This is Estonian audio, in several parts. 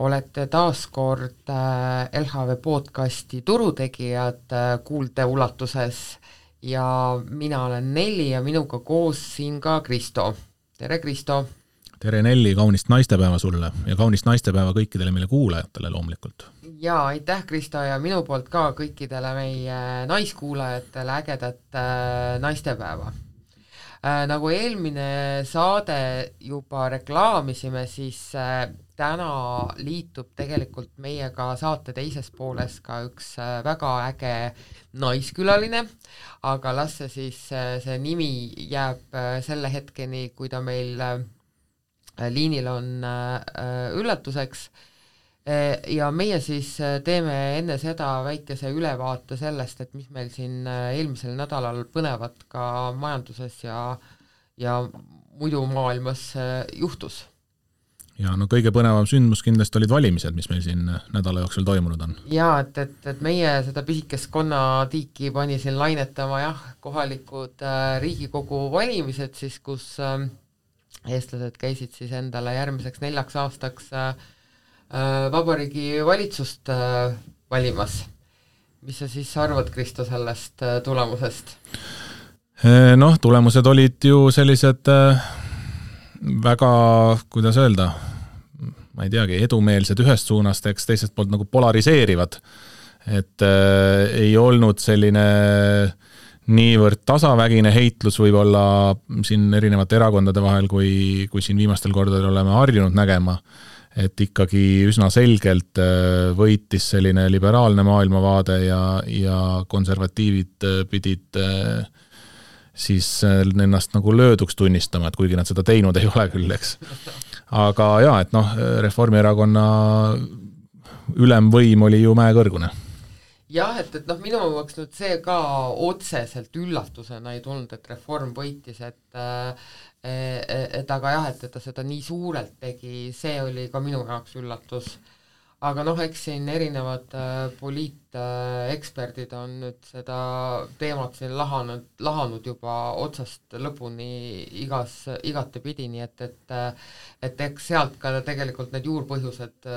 olete taas kord LHV podcasti Turutegijad kuulde ulatuses ja mina olen Nelli ja minuga koos siin ka Kristo. Tere Kristo! Tere Nelli, kaunist naistepäeva sulle ja kaunist naistepäeva kõikidele meile kuulajatele loomulikult. Ja aitäh Kristo ja minu poolt ka kõikidele meie naiskuulajatele ägedat naistepäeva. Nagu eelmine saade juba reklaamisime, siis täna liitub tegelikult meiega saate teises pooles ka üks väga äge naiskülaline, aga las see nimi jääb selle hetkeni, kui ta meil liinil on üllatuseks. Ja meie siis teeme enne seda väikese ülevaate sellest, et mis meil siin eelmisel nädalal põnevat ka majanduses ja muidu maailmas juhtus. Ja no kõige põnevam sündmus kindlasti olid valimised, mis meil siin nädala jooksul toimunud on. Ja, et meie seda pisikest konnatiiki pani siin lainetama kohalikud Riigikogu valimised, siis kus eestlased käisid siis endale järgmiseks 4 aastaks vabariigi valitsust valimas. Mis sa siis arvad, Kristo, sellest tulemusest? Noh, tulemused olid ju sellised väga, kuidas öelda, ma ei teagi, edumeelsed ühest suunast, eks teisest poolt nagu polariseerivad. Et ei olnud selline niivõrd tasavägine heitlus võib-olla siin erinevate erakondade vahel, kui siin viimastel kordadel oleme harjunud nägema. Et ikkagi üsna selgelt võitis selline liberaalne maailmavaade ja konservatiivid pidid siis ennast nagu lööduks tunnistama, et kuigi nad seda teinud ei ole küll, eks. Aga et Reformierakonna ülemvõim oli ju mäekõrgune. Jah, et minu jaoks nüüd see ka otseselt üllatusena ei tulnud, et Reform võitis, et aga et ta seda nii suurelt tegi, see oli ka minu jaoks üllatus. Aga eks siin erinevad poliiteksperdid on nüüd seda teemat siin lahanud juba otsast lõpuni igatepidi, nii et eks sealt ka tegelikult need juurpõhjused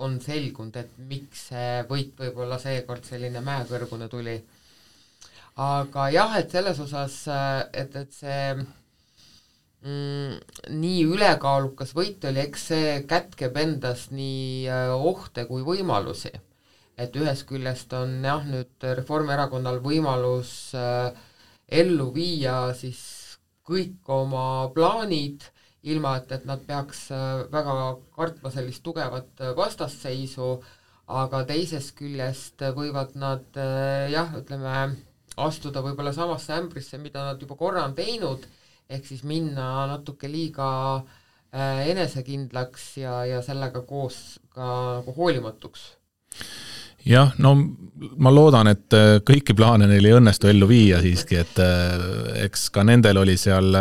on selgunud, et miks see võit võib-olla seekord selline mäekõrgune tuli. Aga et selles osas, et see nii ülekaalukas võit oli, eks see kätkeb endas nii ohte kui võimalusi. Et ühest küljest on nüüd Reformierakonnal võimalus ellu viia siis kõik oma plaanid, ilma et nad peaks väga kartma sellist tugevat vastasseisu, aga teisest küljest võivad nad astuda võib-olla samasse ämbrisse, mida nad juba korra on teinud, ehk siis minna natuke liiga enesekindlaks ja sellega koos ka nagu hoolimatuks. Jah, no ma loodan, et kõiki plaane neil ei õnnestu ellu viia siiski, et eks ka nendel oli seal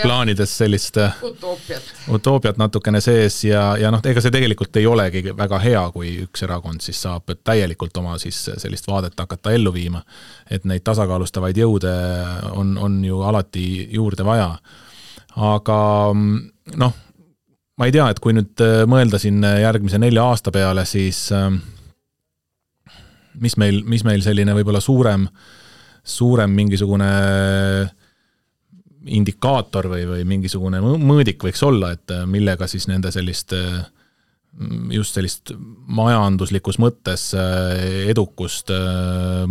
plaanides sellist utoopiat natukene sees ja ega see tegelikult ei olegi väga hea, kui üks erakond siis saab täielikult oma siis sellist vaadet hakata ellu viima, et neid tasakaalustavaid jõude on ju alati juurde vaja. Aga ma ei tea, et kui nüüd mõelda siin järgmise 4 aasta peale, siis mis meil selline võib-olla suurem mingisugune indikaator või mingisugune mõõdik võiks olla, et millega siis nende sellist majanduslikus mõttes edukust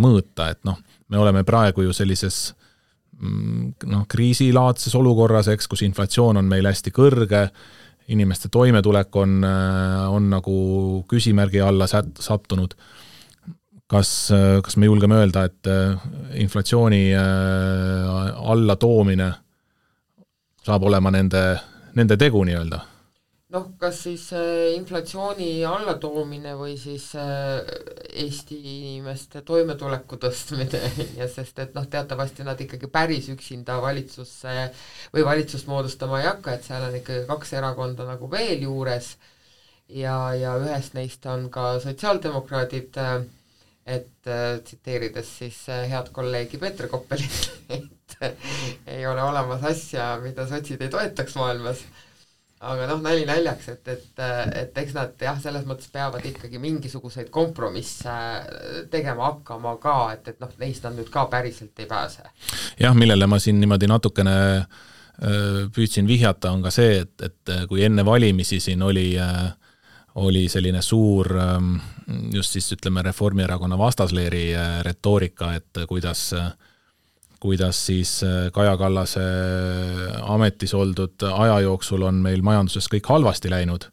mõõta, et me oleme praegu ju sellises kriisilaadses olukorras, eks, kus inflatsioon on meil hästi kõrge, inimeste toimetulek on nagu küsimärgi alla sattunud. Kas me julgeme öelda, et inflatsiooni alla toomine saab olema nende tegu nii-öelda? Kas siis inflatsiooni alla toomine või siis Eesti inimeste toimetuleku tõstmine, ja sest et teatavasti nad ikkagi päris üksinda valitsusse või valitsust moodustama ei hakka, et seal on ikkagi 2 erakonda nagu veel juures ja ühest neist on ka sotsiaaldemokraadid, et tsiteerides siis head kolleegi Peeter Koppelit, et ei ole olemas asja, mida sotsid ei toetaks maailmas. aga nali naljaks, et eks nad jah, selles mõttes peavad ikkagi mingisuguseid kompromisse tegema hakkama ka, et neist nad nüüd ka päriselt ei pääse. Jah, millele ma siin niimoodi natukene püüdsin vihjata, on ka see, et kui enne valimisi siin oli selline suur just siis ütleme Reformierakonna vastasleeri retoorika, et kuidas siis Kaja Kallase ametis oldud aja jooksul on meil majanduses kõik halvasti läinud,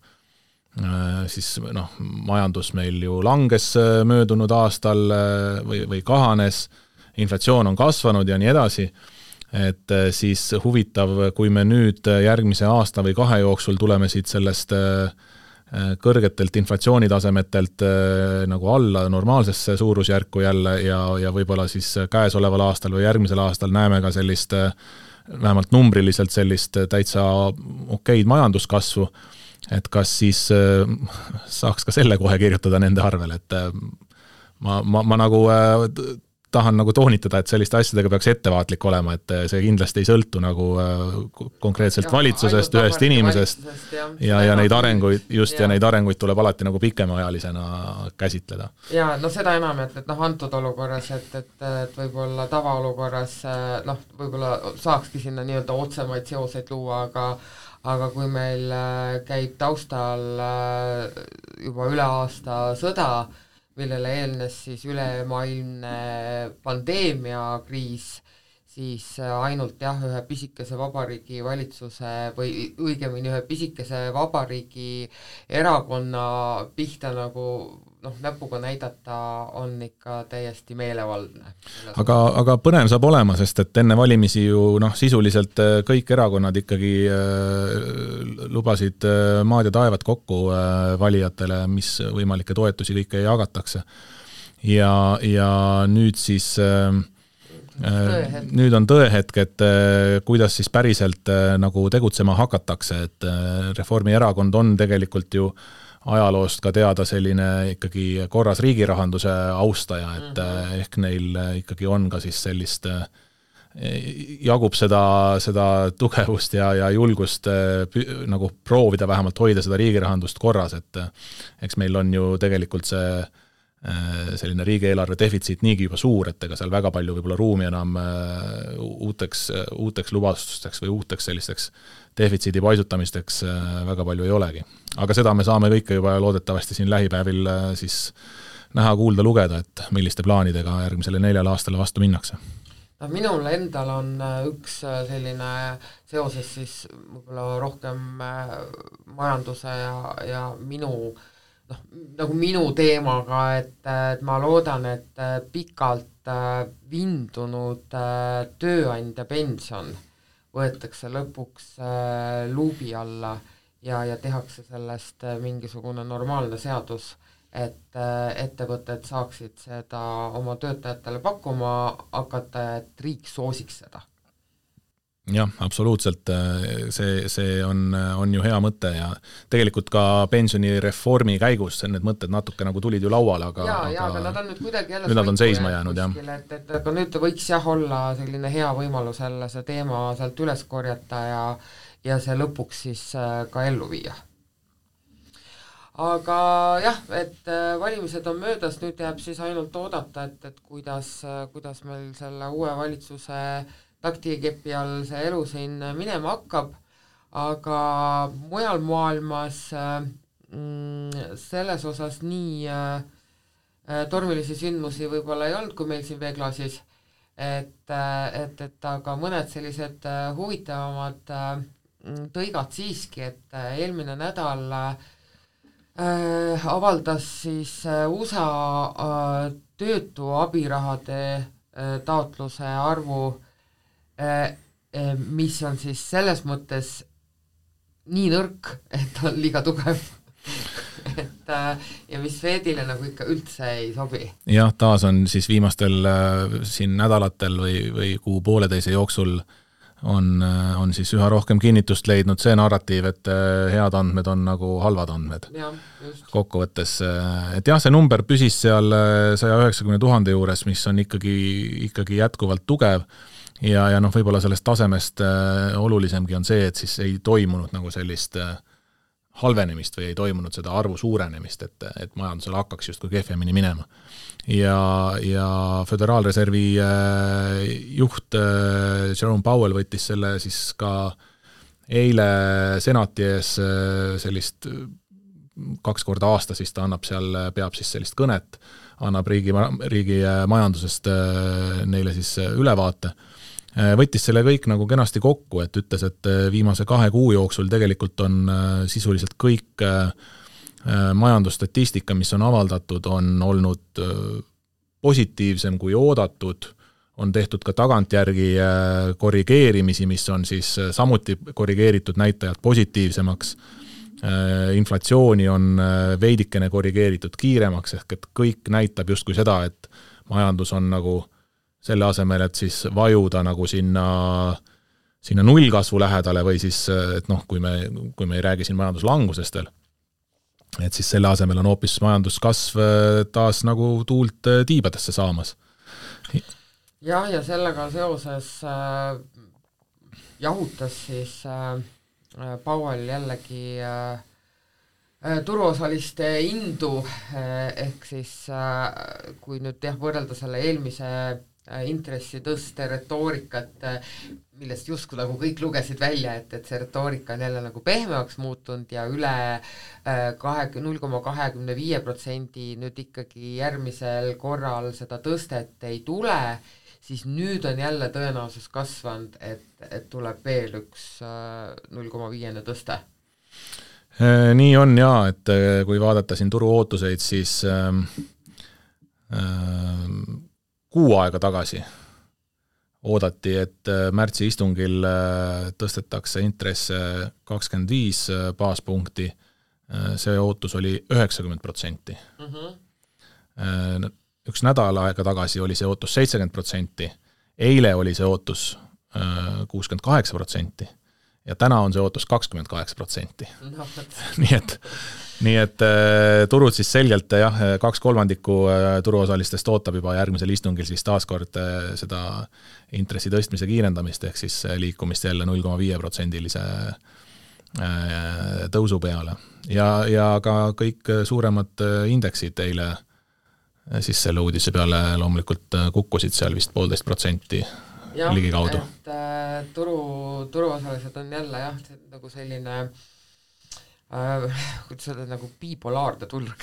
siis majandus meil ju langes möödunud aastal või kahanes, inflatsioon on kasvanud ja nii edasi, et siis huvitav, kui me nüüd järgmise aasta või 2 jooksul tuleme siit sellest kõrgetelt inflatsioonitasemetelt nagu alla normaalsesse suurusjärku jälle ja võib-olla siis käesoleval aastal või järgmisel aastal näeme ka sellist, vähemalt numbriliselt sellist täitsa okeid majanduskasvu, et kas siis saaks ka selle kohe kirjutada nende arvel, et ma nagu tahan nagu toonitada, et selliste asjadega peaks ettevaatlik olema, et see kindlasti ei sõltu nagu konkreetselt valitsusest, ühest inimesest ja neid arenguid, ja neid arenguid tuleb alati nagu pikemaajalisena käsitleda. Ja seda enam, et antud olukorras, et võib-olla tavaolukorras võib-olla saakski sinna nii-öelda otsemaid seoseid luua, aga kui meil käib taustal juba üle aasta sõda, millele eelnes siis ülemaailmne pandeemiakriis, siis ainult ühe pisikese vabariigi valitsuse või õigemini ühe pisikese vabariigi erakonna pihta nagu näpuga näidata on ikka täiesti meelevaldne. Aga põnev saab olema, sest et enne valimisi ju sisuliselt kõik erakonnad ikkagi lubasid maad ja taevad kokku valijatele, mis võimalikke toetusi kõike jagatakse. Ja nüüd siis nüüd on tõehetk, et kuidas siis päriselt nagu tegutsema hakatakse, et Reformierakond on tegelikult ju ajaloost ka teada selline ikkagi korras riigirahanduse austaja, et ehk neil ikkagi on ka siis sellist, jagub seda tugevust ja julgust nagu proovida vähemalt hoida seda riigirahandust korras, et eks meil on ju tegelikult selline riigieelarve defitsiit niigi juba suur, et ega seal väga palju võib-olla ruumi enam uuteks lubastusteks või uuteks sellisteks defitsiidi paisutamisteks väga palju ei olegi. Aga seda me saame kõike juba loodetavasti siin lähipäevil siis näha, kuulda, lugeda, et milliste plaanidega järgmisele 4 aastale vastu minnakse. Minul endal on üks selline seoses siis võib-olla rohkem majanduse ja nagu minu teemaga, et ma loodan, et pikalt vindunud tööandja pension võetakse lõpuks luubi alla ja tehakse sellest mingisugune normaalne seadus, et ettevõtted saaksid seda oma töötajatele pakkuma hakata, et riik soosiks seda. Jah, absoluutselt, see on ju hea mõte ja tegelikult ka pensionireformi käigus need mõtted natuke nagu tulid ju lauale, aga nad on nüüd kuidagi jälle nüüd nad on seisma jäänud, kuskil, et aga nüüd võiks olla selline hea võimalus jälle see teema sealt üles korjata ja see lõpuks siis ka ellu viia. Aga jah, et valimised on möödas, nüüd jääb siis ainult oodata, et kuidas meil selle uue valitsuse taktikepi all see elu siin minema hakkab, aga mujal maailmas selles osas nii tormilisi sündmusi võib-olla ei olnud, kui meil siin veeklaasis, et aga mõned sellised huvitavamad tõigad siiski, et eelmine nädal avaldas siis USA töötu abirahade taotluse arvu, mis on siis selles mõttes nii nõrk, et on liiga tugev. Ja mis Fedile nagu ikka üldse ei sobi. Jah, taas on siis viimastel siin nädalatel või kuu pooleteise jooksul on siis üha rohkem kinnitust leidnud see narratiiv, et head andmed on nagu halvad andmed. Kokkuvõttes, et jah, see number püsis seal 190 000 juures, mis on ikkagi jätkuvalt tugev ja noh, võib-olla sellest tasemest olulisemgi on see, et siis ei toimunud nagu sellist halvenemist või ei toimunud seda arvu suurenemist, et majandusel hakkaks justkui kehvemini minema. Ja Föderaalreservi juht Jerome Powell võttis selle siis ka eile senati ees sellist 2 korda aastas, siis ta peab siis sellist kõnet, annab riigi majandusest neile siis ülevaate. Võttis selle kõik nagu kenasti kokku, et ütles, et viimase 2 kuu jooksul tegelikult on sisuliselt kõik majandusstatistika, mis on avaldatud, on olnud positiivsem kui oodatud, on tehtud ka tagantjärgi korrigeerimisi, mis on siis samuti korrigeeritud näitajad positiivsemaks, inflatsiooni on veidikene korrigeeritud kiiremaks, ehk et kõik näitab justkui seda, et majandus on nagu selle asemel, et siis vajuda nagu sinna nullkasvu lähedale või siis, et noh, kui me ei räägi siin majanduslangusest veel, et siis selle asemel on hoopis majanduskasv taas nagu tuult tiibadesse saamas. Ja sellega seoses jahutas siis Powell jällegi turuosaliste indu, ehk siis kui nüüd võrrelda selle eelmise intressitõste retoorikat, millest justkui nagu kõik lugesid välja, et see retoorika on jälle nagu pehmemaks muutunud ja üle 0,25% nüüd ikkagi järgmisel korral seda tõstet ei tule, siis nüüd on jälle tõenäosus kasvanud, et tuleb veel üks 0,5 tõste. Nii on jaa, et kui vaadata siin turu ootuseid, siis kuu aega tagasi oodati, et märtsi istungil tõstetakse intresse 25 baaspunkti, see ootus oli 90%. Üks nädal aega tagasi oli see ootus 70%, eile oli see ootus 68% ja täna on see ootus 28%. Nii et turud siis selgelt 2/3 turuosalistest ootab juba järgmisel istungil siis taaskord seda intressi tõstmise kiirendamist, ehk siis liikumist jälle 0,5%-lise tõusu peale. Ja ka kõik suuremad indeksid eile siis selle uudise peale loomulikult kukkusid seal vist 1,5% ligikaudu. Et turuosalised on jälle nagu selline kuidas öelda, nagu bipolaarne turg,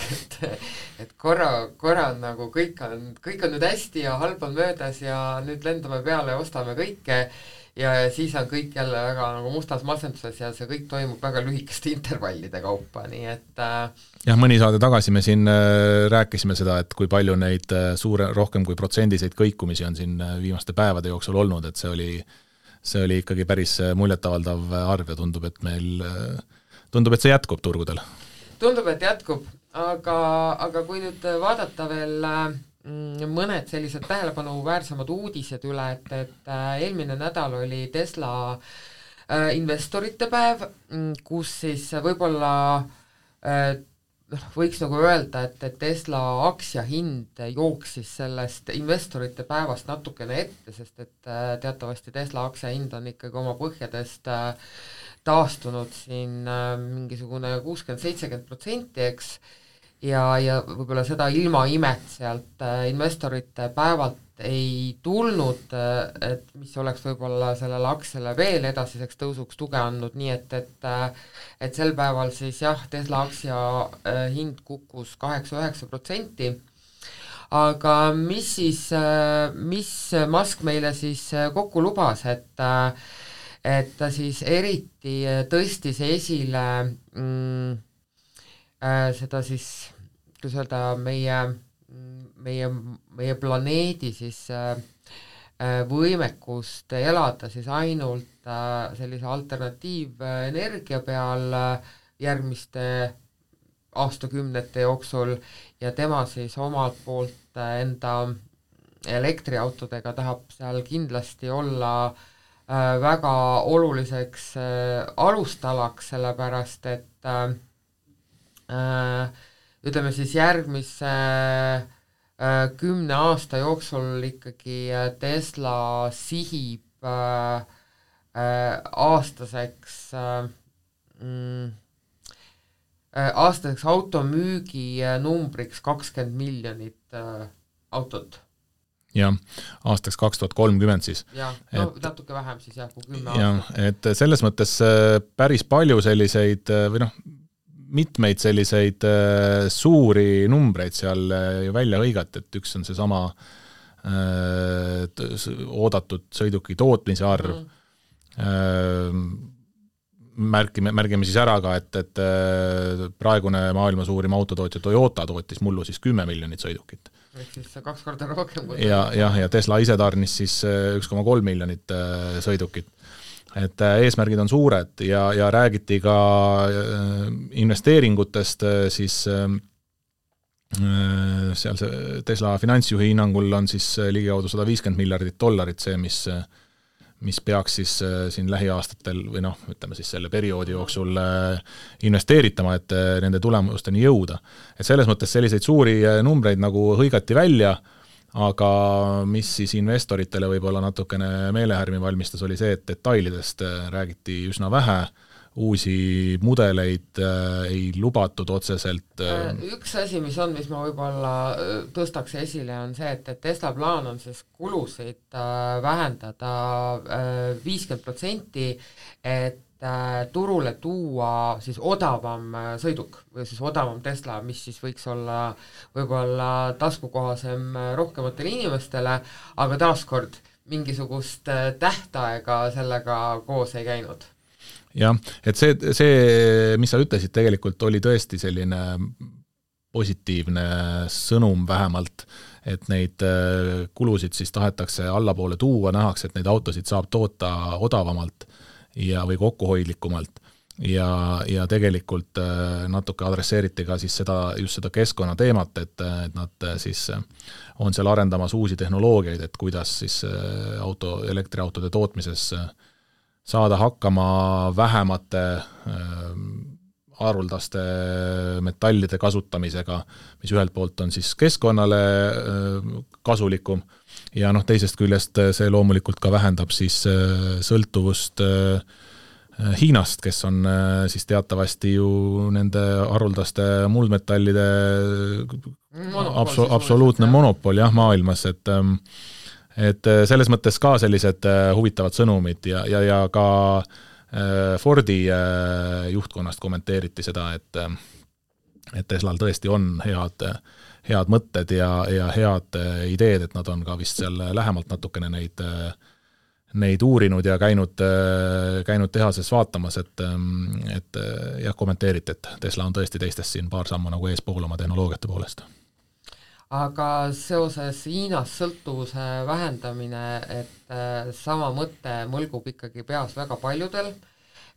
et korra on nagu kõik on nüüd hästi ja halb on möödas ja nüüd lendame peale ja ostame kõike ja siis on kõik jälle väga nagu mustas masenduses ja see kõik toimub väga lühikeste intervallide kaupa, nii et jah, mõni saade tagasi me siin rääkisime seda, et kui palju neid rohkem kui protsendiseid kõikumisi on siin viimaste päevade jooksul olnud, et see oli ikkagi päris muljetavaldav arv ja tundub, et see jätkub turgudel. Tundub, et jätkub, aga kui nüüd vaadata veel mõned sellised tähelepanuväärsemad uudised üle, et eelmine nädal oli Tesla investorite päev, kus siis võib-olla võiks nagu öelda, et Tesla aktsiahind jooksis sellest investorite päevast natukene ette, sest et teatavasti Tesla aktsiahind on ikkagi oma põhjadest taastunud siin mingisugune 60-70%, eks, ja võib-olla seda ilma imet sealt investorite päevalt ei tulnud, et mis oleks võib-olla sellele aktsiale veel edasiseks tõusuks tuge andnud, nii et sel päeval siis jah, Tesla aktsia hind kukkus 8-9%, aga mis Musk meile siis kokku lubas, et ta siis eriti tõstis esile seda siis, kuidas öelda, meie planeedi siis võimekust elada siis ainult sellise alternatiivenergia peal järgmiste aastakümnete jooksul ja tema siis omalt poolt enda elektriautodega tahab seal kindlasti olla väga oluliseks alustalaks, sellepärast et ütleme siis järgmise 10 aasta jooksul ikkagi Tesla sihib aastaseks automüügi numbriks 20 miljonit autot. Jah, aastaks 2030 siis. Jah, no natuke vähem siis jah, kui 10 aastat. Et selles mõttes päris palju selliseid või noh, mitmeid selliseid suuri numbreid seal ju välja hõigati, et üks on see sama oodatud sõiduki tootmise arv. Märgime siis ära ka, et praegune maailma suurim autotootja Toyota tootis mullu siis 10 miljonit sõidukit. Ehk siis 2 korda rohkem. Ja Tesla ise tarnis siis 1,3 miljonit sõidukit. Et eesmärgid on suured ja räägiti ka investeeringutest, siis seal see Tesla finantsjuhi hinnangul on siis ligikaudu $150 miljardit see, mis peaks siis siin lähiaastatel või noh, ütleme siis selle perioodi jooksul investeeritama, et nende tulemusteni jõuda. Et selles mõttes selliseid suuri numbreid nagu hõigati välja, aga mis siis investoritele võib-olla natukene meelehärmi valmistas, oli see, et detailidest räägiti üsna vähe, uusi mudeleid ei lubatud otseselt. Üks asi, mis ma võib-olla tõstaks esile, on see, et Tesla plaan on siis kulusid vähendada 50%, et turule tuua siis odavam sõiduk või siis odavam Tesla, mis siis võiks olla võib-olla taskukohasem rohkematele inimestele, aga taaskord mingisugust tähtaega sellega koos ei käinud. Jah, et see, mis sa ütlesid, tegelikult oli tõesti selline positiivne sõnum vähemalt, et neid kulusid siis tahetakse allapoole tuua, nähakse, et neid autosid saab toota odavamalt või kokkuhoidlikumalt ja tegelikult natuke adresseeriti ka siis just seda keskkonna teemat, et nad siis on seal arendamas uusi tehnoloogiaid, et kuidas siis elektriautode tootmises saada hakkama vähemate haruldaste metallide kasutamisega, mis ühelt poolt on siis keskkonnale kasulikum ja teisest küljest see loomulikult ka vähendab siis sõltuvust Hiinast, kes on siis teatavasti ju nende haruldaste muldmetallide absoluutne monopol maailmas, et selles mõttes ka sellised huvitavad sõnumid ja ka Fordi juhtkonnast kommenteeriti seda, et Teslal tõesti on head mõtted ja head ideed, et nad on ka vist seal lähemalt natukene neid uurinud ja käinud tehases vaatamas, et jah, kommenteeriti, et Tesla on tõesti teistest siin paar sammu nagu eespool oma tehnoloogiate poolest. Aga seoses Hiinas sõltuvuse vähendamine, et sama mõte mõlgub ikkagi peas väga paljudel,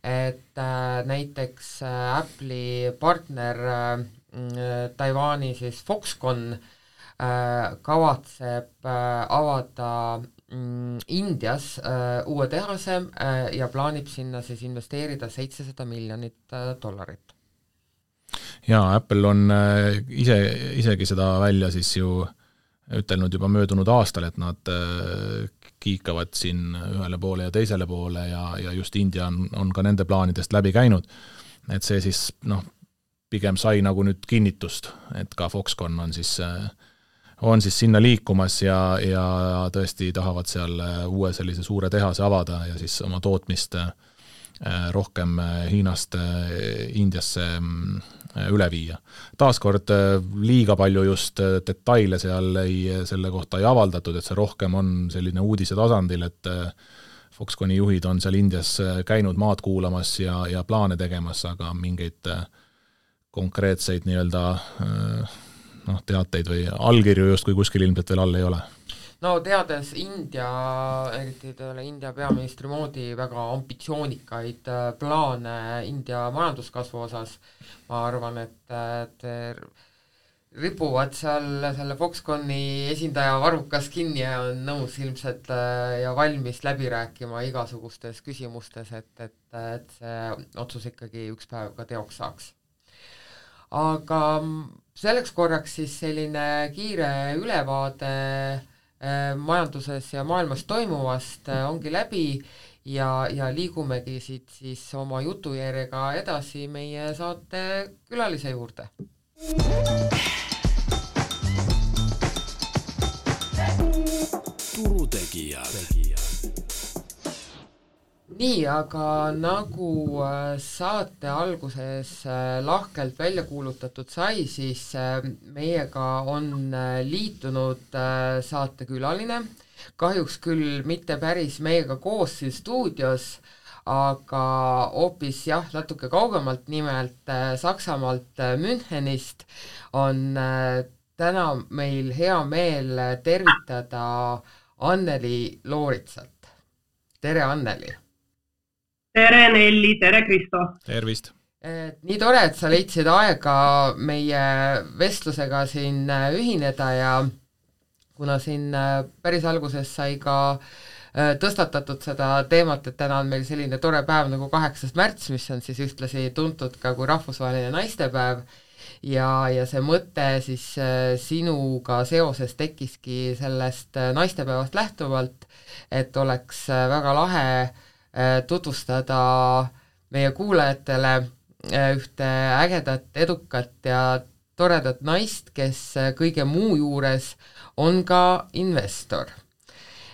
et näiteks Apple'i partner Taiwani siis Foxconn kavatseb avada Indias uue tehase ja plaanib sinna siis investeerida $700 miljonit. Jaa, Apple on isegi seda välja siis ju ütelnud juba möödunud aastal, et nad kiikavad siin ühele poole ja teisele poole ja just India on ka nende plaanidest läbi käinud, et see siis pigem sai nagu nüüd kinnitust, et ka Foxconn on siis sinna liikumas ja tõesti tahavad seal uue sellise suure tehase avada ja siis oma tootmist rohkem Hiinast Indiasse üle viia. Taaskord liiga palju just detaile selle kohta ei avaldatud, et see rohkem on selline uudise tasandil, et Foxconni juhid on seal Indias käinud maad kuulamas ja plaane tegemas, aga mingeid konkreetseid nii-öelda teateid või allkirju justkui kuskil ilmselt veel all ei ole. No teades eriti India peaministri moodi väga ambitsioonikaid plaane India majanduskasvu osas, ma arvan, et ripuvad seal selle Foxconni esindaja varrukas kinni ja on nõus ilmselt ja valmis läbi rääkima igasugustes küsimustes, et see otsus ikkagi üks päev ka teoks saaks. Aga selleks korraks siis selline kiire ülevaade majanduses ja maailmas toimuvast ongi läbi ja liigumegi siit siis oma jutujärjega edasi meie saate külalise juurde. Turutegijad. Nii, aga nagu saate alguses lahkelt välja kuulutatud sai, siis meiega on liitunud saatekülaline, kahjuks küll mitte päris meiega koos siin stuudios, aga hoopis natuke kaugemalt, nimelt Saksamaalt Münchenist on täna meil hea meel tervitada Anneli Looritsat. Tere, Anneli! Tere, Nelli! Tere, Kristo! Tervist! Nii tore, et sa leidsid aega meie vestlusega siin ühineda ja kuna siin päris alguses sai ka tõstatatud seda teemat, et täna on meil selline tore päev nagu 8. märts, mis on siis ühtlasi tuntud ka kui rahvusvaheline naistepäev ja see mõte siis sinuga seoses tekkiski sellest naistepäevast lähtuvalt, et oleks väga lahe tutvustada meie kuulajatele ühte ägedat, edukat ja toredat naist, kes kõige muu juures on ka investor.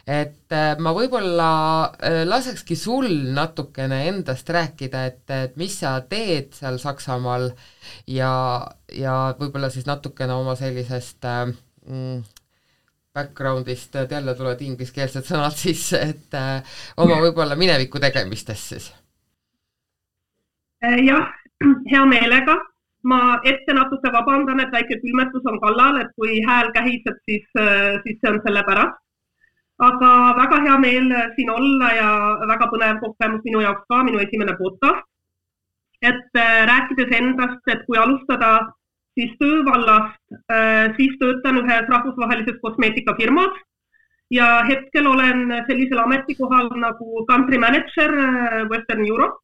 Et ma võib-olla lasekski sul natukene endast rääkida, et mis sa teed seal Saksamaal ja võib-olla siis natukene oma sellisest backgroundist, jälle tulevad ingliskeelsed sõnad sisse, et oma võib-olla mineviku tegemistest siis. Jah, hea meelega. Ma ette natuke vabandan, et väike külmetus on kallal, et kui hääl kähiseb, siis see on selle pärast. Aga väga hea meel siin olla ja väga põnev kogemus minu jaoks ka, minu esimene podcast. Et rääkides endast, et kui alustada siis töövallast, siis töötan ühes rahvusvahelises kosmeetikafirmas ja hetkel olen sellisel ametikohal nagu country manager Western Europe.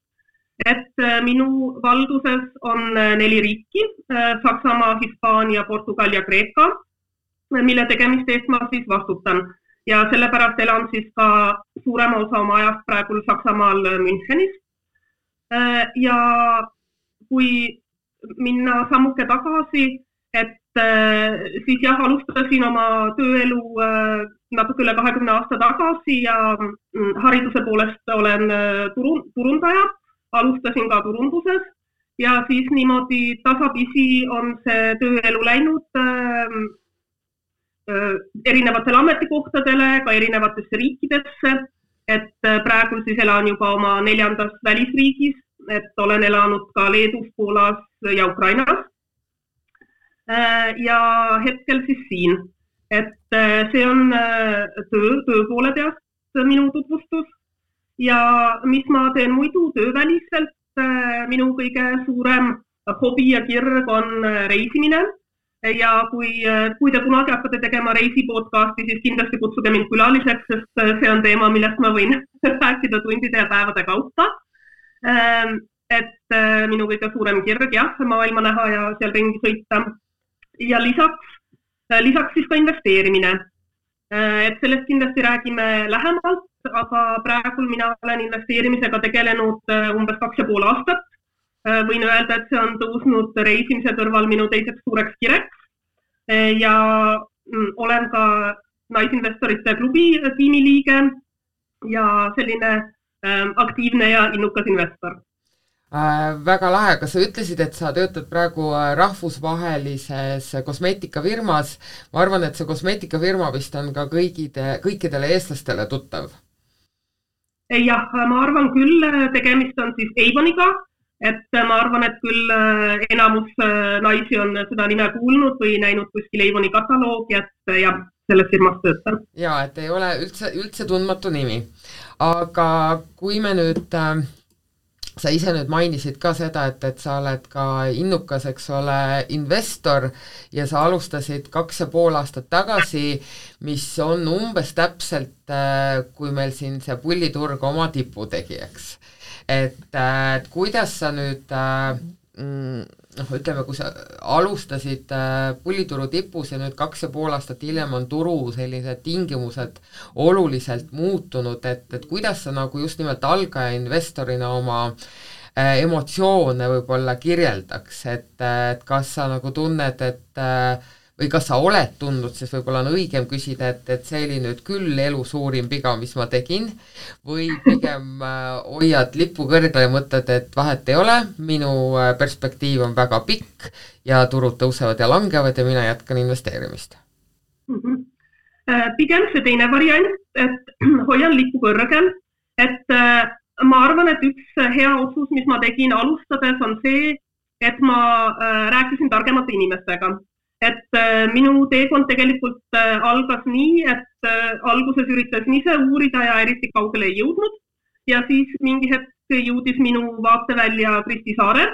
Et minu valduses on 4 riiki, Saksamaa, Hispaania, Portugal ja Kreeka, mille tegemiste eest ma siis vastutan. Ja sellepärast elan siis ka suurema osa oma ajast praegu Saksamaal Münchenis. Ja kui minna sammuke tagasi, et siis alustasin oma tööelu natuke üle 20 aasta tagasi ja hariduse poolest olen turundaja, alustasin ka turunduses ja siis niimoodi tasapisi on see tööelu läinud erinevatele ametikohtadele, ka erinevatesse riikidesse, et praegu siis elan juba oma 4. välisriigis, et olen elanud ka Leedus, Poolas ja Ukrainas. Ja hetkel siis siin, et see on töö poole peast minu tutvustus ja mis ma teen muidu tööväliselt, minu kõige suurem hobi ja kirg on reisimine. Ja kui te kunagi hakkate tegema reisipodcasti, siis kindlasti kutsuge mind külaliseks, sest see on teema, millest ma võin rääkida tundide ja päevade kaupa. Et minu kõige suurem kirg, maailma näha ja seal ringi sõita. Ja lisaks siis ka investeerimine. Et sellest kindlasti räägime lähemalt, aga praegu mina olen investeerimisega tegelenud umbes 2,5 aastat. Võin öelda, et see on tõusnud reisimise kõrval minu teiseks suureks kireks ja olen ka naisinvestorite klubi tiimiliige ja selline aktiivne ja innukas investor. Väga lahe, kas sa ütlesid, et sa töötad praegu rahvusvahelises kosmeetikafirmas? Ma arvan, et see kosmeetikafirma vist on ka kõikidele eestlastele tuttav. Jah, ma arvan küll, tegemist on siis Avoniga. Et ma arvan, et küll enamus naisi on seda nime kuulnud või näinud kuskil Avoni kataloogi, et jah, selles firmas töötan. Ja, et ei ole üldse tundmatu nimi. Aga kui me nüüd sa ise nüüd mainisid ka seda, et sa oled ka innukas, eks ole, investor ja sa alustasid 2,5 aastat tagasi, mis on umbes täpselt, kui meil siin see pulliturg oma tipu tegi, eks. Et kuidas sa nüüd, ütleme, kui sa alustasid pullituru tipus ja nüüd 2,5 aastat hiljem on turu sellised tingimused oluliselt muutunud, et kuidas sa nagu just nimelt algaja investorina oma emotsioone võib-olla kirjeldaks, et kas sa nagu tunned, või kas sa oled tundnud, siis võib-olla on õigem küsida, et see oli nüüd küll elu suurim viga, mis ma tegin, või pigem hoiad lippu kõrgele ja mõtled, et vahet ei ole, minu perspektiiv on väga pikk ja turud tõusevad ja langevad ja mina jätkan investeerimist. Pigem see teine variant, et hoian lippu kõrgel, et ma arvan, et üks hea otsus, mis ma tegin alustades, on see, et ma rääkisin targemate inimestega. Et minu teekond tegelikult algas nii, et alguses üritasin ise uurida ja eriti kaugele ei jõudnud ja siis mingi hetk jõudis minu vaatevälja Kristi Saare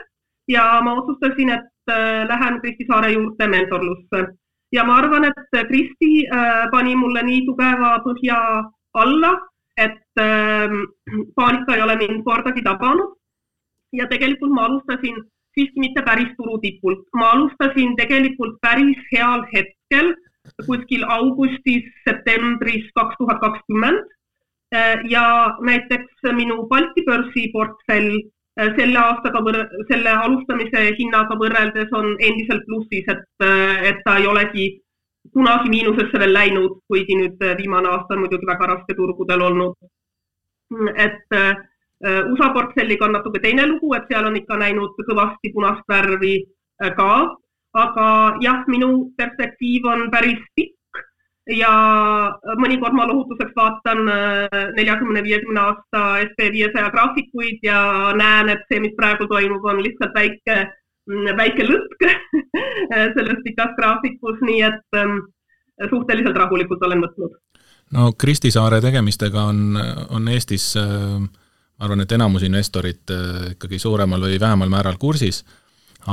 ja ma otsustasin, et lähen Kristi Saare juurde mentorlusse. Ja ma arvan, et Kristi pani mulle nii tugeva põhja alla, et paanika ei ole mind kordagi tabanud ja tegelikult ma alustasin siiski mitte päris turutipult. Ma alustasin tegelikult päris heal hetkel, kuskil augustis, septembris 2020 ja näiteks minu Balti börsi portfell selle alustamise hinnaga võrreldes on endiselt plussis, et ta ei olegi kunagi miinusesse veel läinud, kuigi nüüd viimane aasta on muidugi väga raske turgudel olnud. Et USA portfelliga on natuke teine lugu, et seal on ikka näinud kõvasti punast värvi ka, aga jah, minu perspektiiv on päris pikk ja mõnikord ma lohutuseks vaatan 40-50 aasta SP500 graafikuid ja näen, et see, mis praegu toimub, on lihtsalt väike lõtk selles pikas graafikus, nii et suhteliselt rahulikult olen võtnud. No Kristi Saare tegemistega on Eestis ma arvan, et enamus investorid ikkagi suuremal või vähemal määral kursis,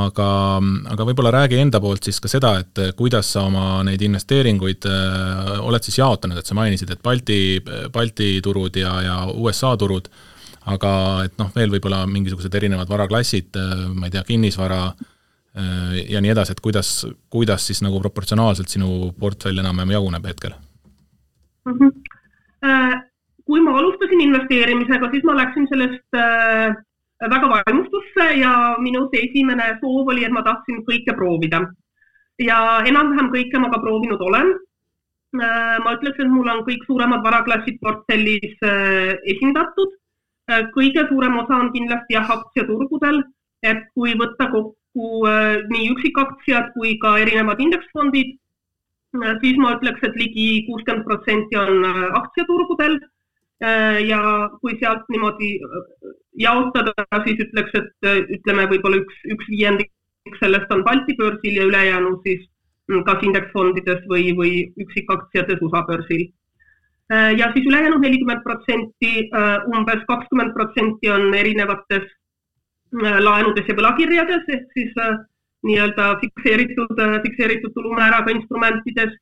aga võib-olla räägi enda poolt siis ka seda, et kuidas sa oma neid investeeringuid oled siis jaotanud, et sa mainisid, et Balti turud ja USA turud, aga et veel võib-olla mingisugused erinevad varaklassid, ma ei tea, kinnisvara ja nii edasi, et kuidas siis nagu proportsionaalselt sinu portfell enam jaguneb hetkel? Kui ma alustasin investeerimisega, siis ma läksin sellest väga vaimustusse ja minu esimene soov oli, et ma tahtsin kõike proovida. Ja enam-vähem kõike ma ka proovinud olen. Ma ütleks, et mul on kõik suuremad varaklassid portfellis esindatud. Kõige suurem osa on kindlasti aktsiaturgudel, et kui võtta kokku nii üksikaktsiad kui ka erinevad indeksfondid, siis ma ütleks, et ligi 60% on aktsiaturgudel. Ja kui sealt niimoodi jaotada, siis ütleks, et ütleme võib-olla üks viiendik sellest on Balti börsil ja ülejäänu siis kas indeksfondides või üksikaktsiates USA börsil. Ja siis ülejäänud 40%, umbes 20% on erinevates laenudes ja võlakirjades, ehk siis nii-öelda fikseeritud tulumääraga instrumentides.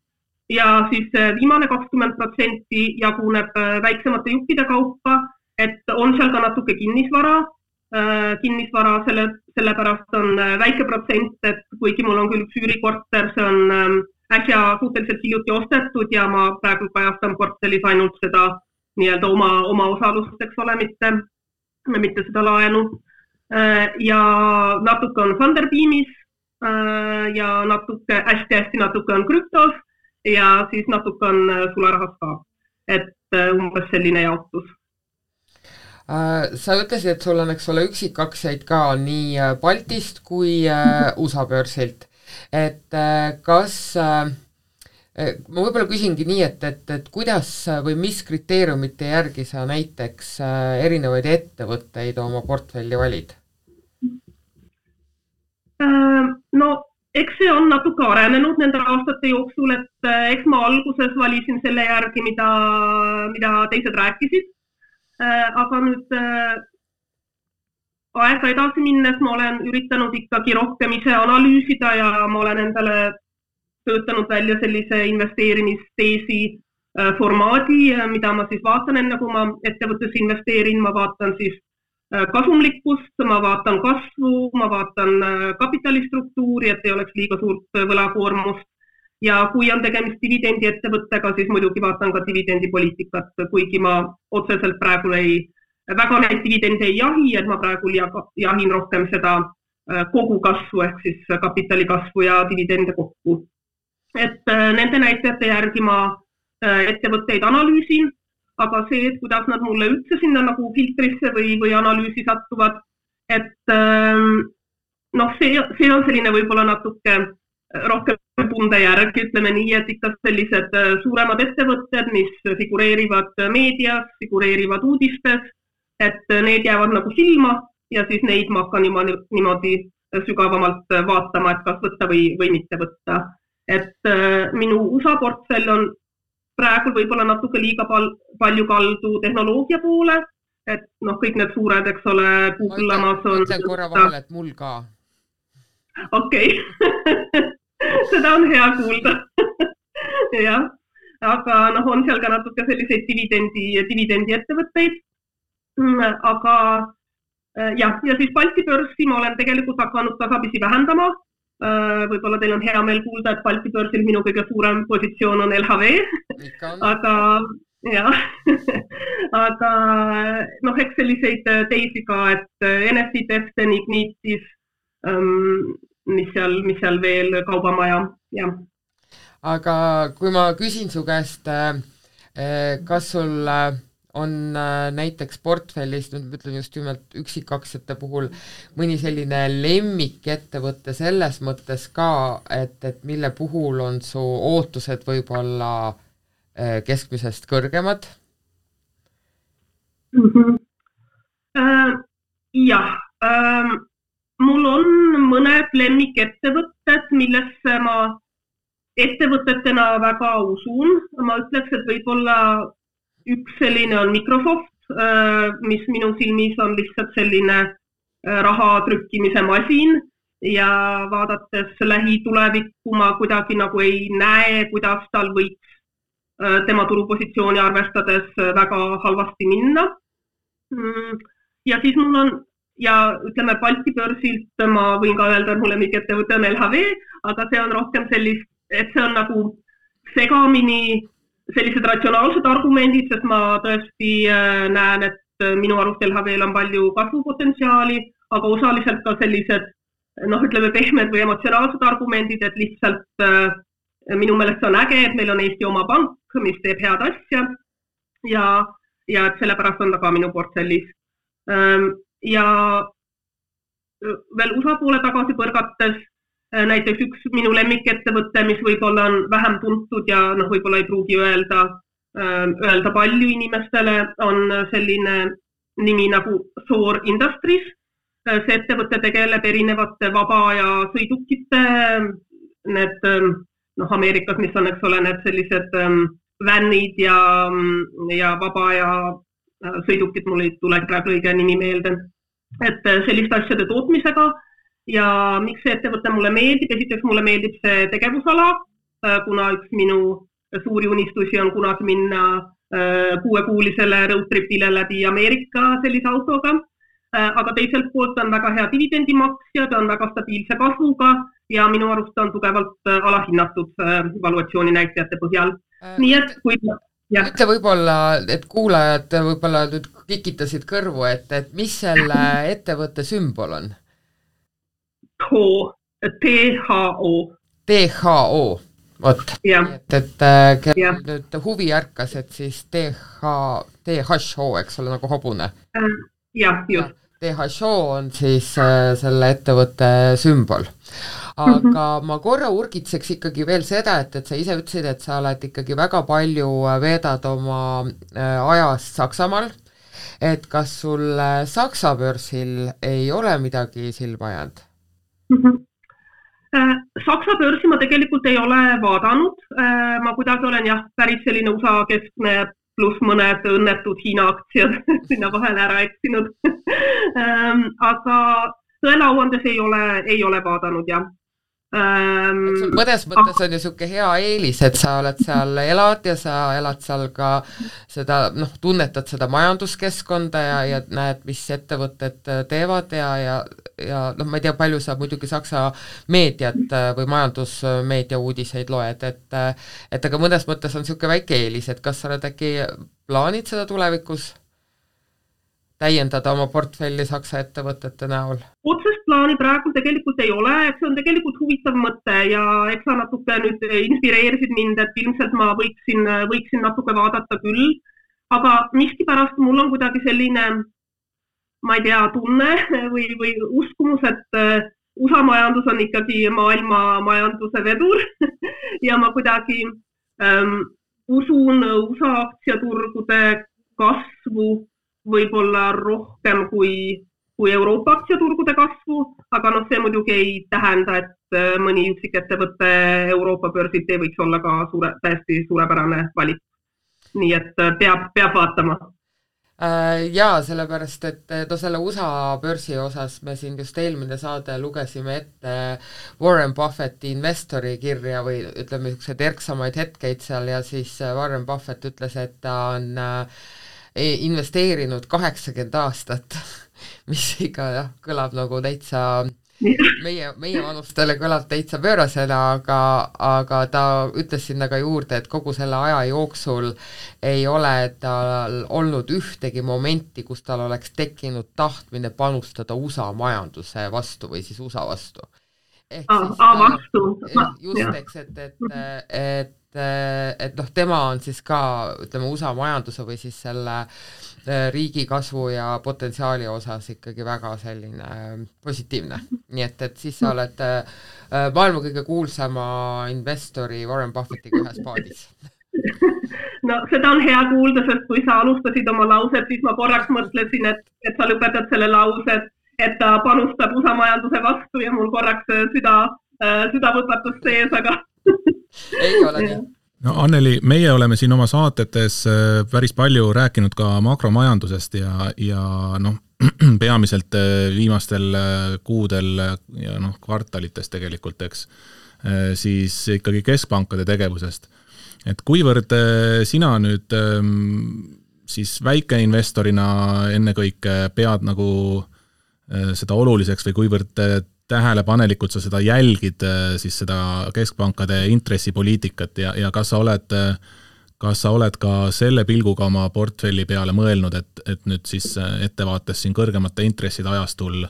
Ja siis viimane 20% jaguneb väiksemate juppide kaupa, et on seal ka natuke kinnisvara sellepärast on väike protsent, et kuigi mul on küll üks üürikorter, see on äsja suhteliselt hiljuti ostetud ja ma praegu kajastan portfellis ainult seda nii-öelda oma osalust, eks ole, mitte seda laenu. Ja natuke on Thunderbeamis ja hästi natuke on krüptos. Ja siis natuke on sularahas ka, et umbes selline jaotus. Sa ütlesid, et sul on, eks ole, üksikaktsiaid ka nii Baltist kui USA börsilt. Et kas, ma võib-olla küsingi nii, et kuidas või mis kriteeriumite järgi sa näiteks erinevaid ettevõtteid oma portfelli valid? No, eks see on natuke arenenud nende aastate jooksul, et eks ma alguses valisin selle järgi, mida teised rääkisid. Aga nüüd aega edasi minnes ma olen üritanud ikkagi rohkem ise analüüsida ja ma olen endale töötanud välja sellise investeerimisteesi formaadi, mida ma siis vaatan enne, kui ma ettevõttes investeerin, ma vaatan siis kasumlikkust, ma vaatan kasvu, ma vaatan kapitalistruktuuri, et ei oleks liiga suurt võlakoormust ja kui on tegemist dividendi ettevõttega, siis muidugi vaatan ka dividendipoliitikat, kuigi ma otseselt praegu väga neid dividende ei jahi, et ma praegu jahin rohkem seda kogu kasvu ehk siis kapitali kasvu ja dividende kokku. Et nende näitajate järgi ma ettevõtteid analüüsin, aga see, et kuidas nad mulle üldse sinna nagu filtrisse või analüüsi sattuvad, et see on selline võib-olla natuke rohkem tunde järgi, ütleme nii, et ikka sellised suuremad ettevõtted, mis figureerivad meedias, figureerivad uudistes, et need jäävad nagu silma ja siis neid ma hakkan niimoodi sügavamalt vaatama, et kas võtta või mitte võtta. Et minu USA portfell on praegu võib-olla natuke liiga palju kaldu tehnoloogia poole, et kõik need suured, eks ole, Google, Amazon. Mõtlen korra vahel, et mul ka. Okei. Seda on hea kuulda. Ja, aga on seal ka natuke selliseid dividendi ettevõtteid. Aga ja siis Balti börsi ma olen tegelikult hakanud tasapisi vähendama. Võib-olla teil on hea meel kuulda, et Balti börsil minu kõige suurem positsioon on LHV, aga eks selliseid teisi ka, et Enefit, Eften, Ignitis, mis seal veel Kaubamaja, jah. Aga kui ma küsin su käest, kas sul on näiteks portfellis, nüüd ütlen just nimelt üksikaktsiate puhul, mõni selline lemmikettevõte selles mõttes ka, et mille puhul on su ootused võib-olla keskmisest kõrgemad? Jah, mul on mõned lemmikettevõtted, millesse ma ettevõtetena väga usun. Ma ütleks, et võib-olla üks selline on Microsoft, mis minu silmis on lihtsalt selline raha trükkimise masin ja vaadates lähitulevikku ma kuidagi nagu ei näe, kuidas tal võiks tema turupositsiooni arvestades väga halvasti minna. Ja siis mul on, ja ütleme Balti börsilt ma võin ka öelda, et mulle lemmikettevõte on LHV, aga see on rohkem sellist, et see on nagu segamini sellised ratsionaalsed argumendid, sest ma tõesti näen, et minu arust LHV-l on palju kasvupotentsiaali, aga osaliselt ka sellised, ütleme pehmed või emotsionaalsed argumendid, et lihtsalt minu meelest on äge, et meil on Eesti oma pank, mis teeb head asja ja et sellepärast on ta ka minu portfellis. Ja veel USA poole tagasi põrgates, näiteks üks minu lemmikettevõte, mis võib-olla on vähem tuntud ja võib-olla ei pruugi öelda palju inimestele, on selline nimi nagu Thor Industries. See ettevõte tegeleb erinevate vabaaja sõidukite, need Ameerikas, mis on, eks ole, need sellised vänid ja vabaaja sõidukid, mul ei tule praegu õige nimi meelde, et selliste asjade tootmisega. Ja miks see ettevõte mulle meeldib? Esiteks mulle meeldib see tegevusala, kuna üks minu suuri unistusi on kunagi minna 6-kuulisele roadtripile läbi Ameerika sellise autoga, aga teiselt poolt on väga hea dividendimaksja, ta on väga stabiilse kasvuga ja minu arust on tugevalt alahinnatud valuatsiooni näitajate põhjal. Nii et kui... Ütle võib-olla, et kuulajad võib-olla nüüd kikitasid kõrvu, et mis selle ettevõtte sümbol on? THO. THO, vot. Et nüüd huvi ärkas, et siis THO, eks ole, nagu hobune. Jah, just. THO on siis selle ettevõtte sümbol. Aga ma korra urgitseks ikkagi veel seda, et sa ise ütlesid, et sa oled ikkagi väga palju veedad oma ajast Saksamaal, et kas sul Saksa börsil ei ole midagi silma jäänud? Saksa börsi ma tegelikult ei ole vaadanud, ma kuidagi olen päris selline USA keskne pluss mõned õnnetud Hiina aktsiad sinna vahele ära eksinud. Aga tõelauandes ei ole vaadanud, jah. Mõnes mõttes on ju siuke hea eelis, et sa oled seal elad ja sa elad seal ka seda, tunnetad seda majanduskeskkonda ja näed, mis ettevõtted teevad ja ma ei tea, palju sa muidugi Saksa meediat või majandusmeedia uudiseid loed, et aga mõnes mõttes on siuke väike eelis, et kas sa oled äkki plaanid seda tulevikus täiendada oma portfelli Saksa ettevõtete näol? Otsest plaani praegu tegelikult ei ole, et see on tegelikult huvitav mõte ja eks sa natuke nüüd inspireerisid mind, et ilmselt ma võiksin natuke vaadata küll, aga miskipärast mul on kuidagi selline, ma ei tea, tunne või uskumus, et USA majandus on ikkagi maailma majanduse vedur ja ma kuidagi usun USA aktsiaturgude kasvu võib-olla rohkem kui Euroopa aktsiaturgude kasvu, aga see muidugi ei tähenda, et mõni üksik ettevõtte Euroopa börsilt ei võiks olla ka täiesti suurepärane valik. Nii et peab vaatama. Jaa, sellepärast, et selle USA börsi osas me siin just eelmine saade lugesime ette Warren Buffetti investori kirja või ütleme niisugused erksamaid hetkeid seal ja siis Warren Buffett ütles, et ta on investeerinud 80 aastat, mis ikka kõlab nagu täitsa, meie vanustele kõlab täitsa pöörasena, aga ta ütles sinna ka juurde, et kogu selle aja jooksul ei ole tal olnud ühtegi momenti, kus tal oleks tekkinud tahtmine panustada USA majanduse vastu või siis USA vastu. Just, eks, et tema on siis ka, ütleme, USA majanduse või siis selle riigi kasvu ja potentsiaali osas ikkagi väga selline positiivne. Nii et siis sa oled maailma kõige kuulsama investori Warren Buffettiga ühes paadis. No seda on hea kuulda, sest kui sa alustasid oma lauset, siis ma korraks mõtlesin, et sa lõpetad selle lause, et ta panustab USA majanduse vastu ja mul korraks süda võpatus sees, aga ei ole nii. No Anneli, meie oleme siin oma saatetes päris palju rääkinud ka makromajandusest ja peamiselt viimastel kuudel ja kvartalites tegelikult, eks, siis ikkagi keskpankade tegevusest. Et kuivõrd sina nüüd siis väikeinvestorina ennekõike pead nagu seda oluliseks või kuivõrd tähelepanelikult sa seda jälgid, siis seda keskpankade intressipoliitikat ja kas sa oled ka selle pilguga oma portfelli peale mõelnud, et nüüd siis ettevaates siin kõrgemate intresside ajastul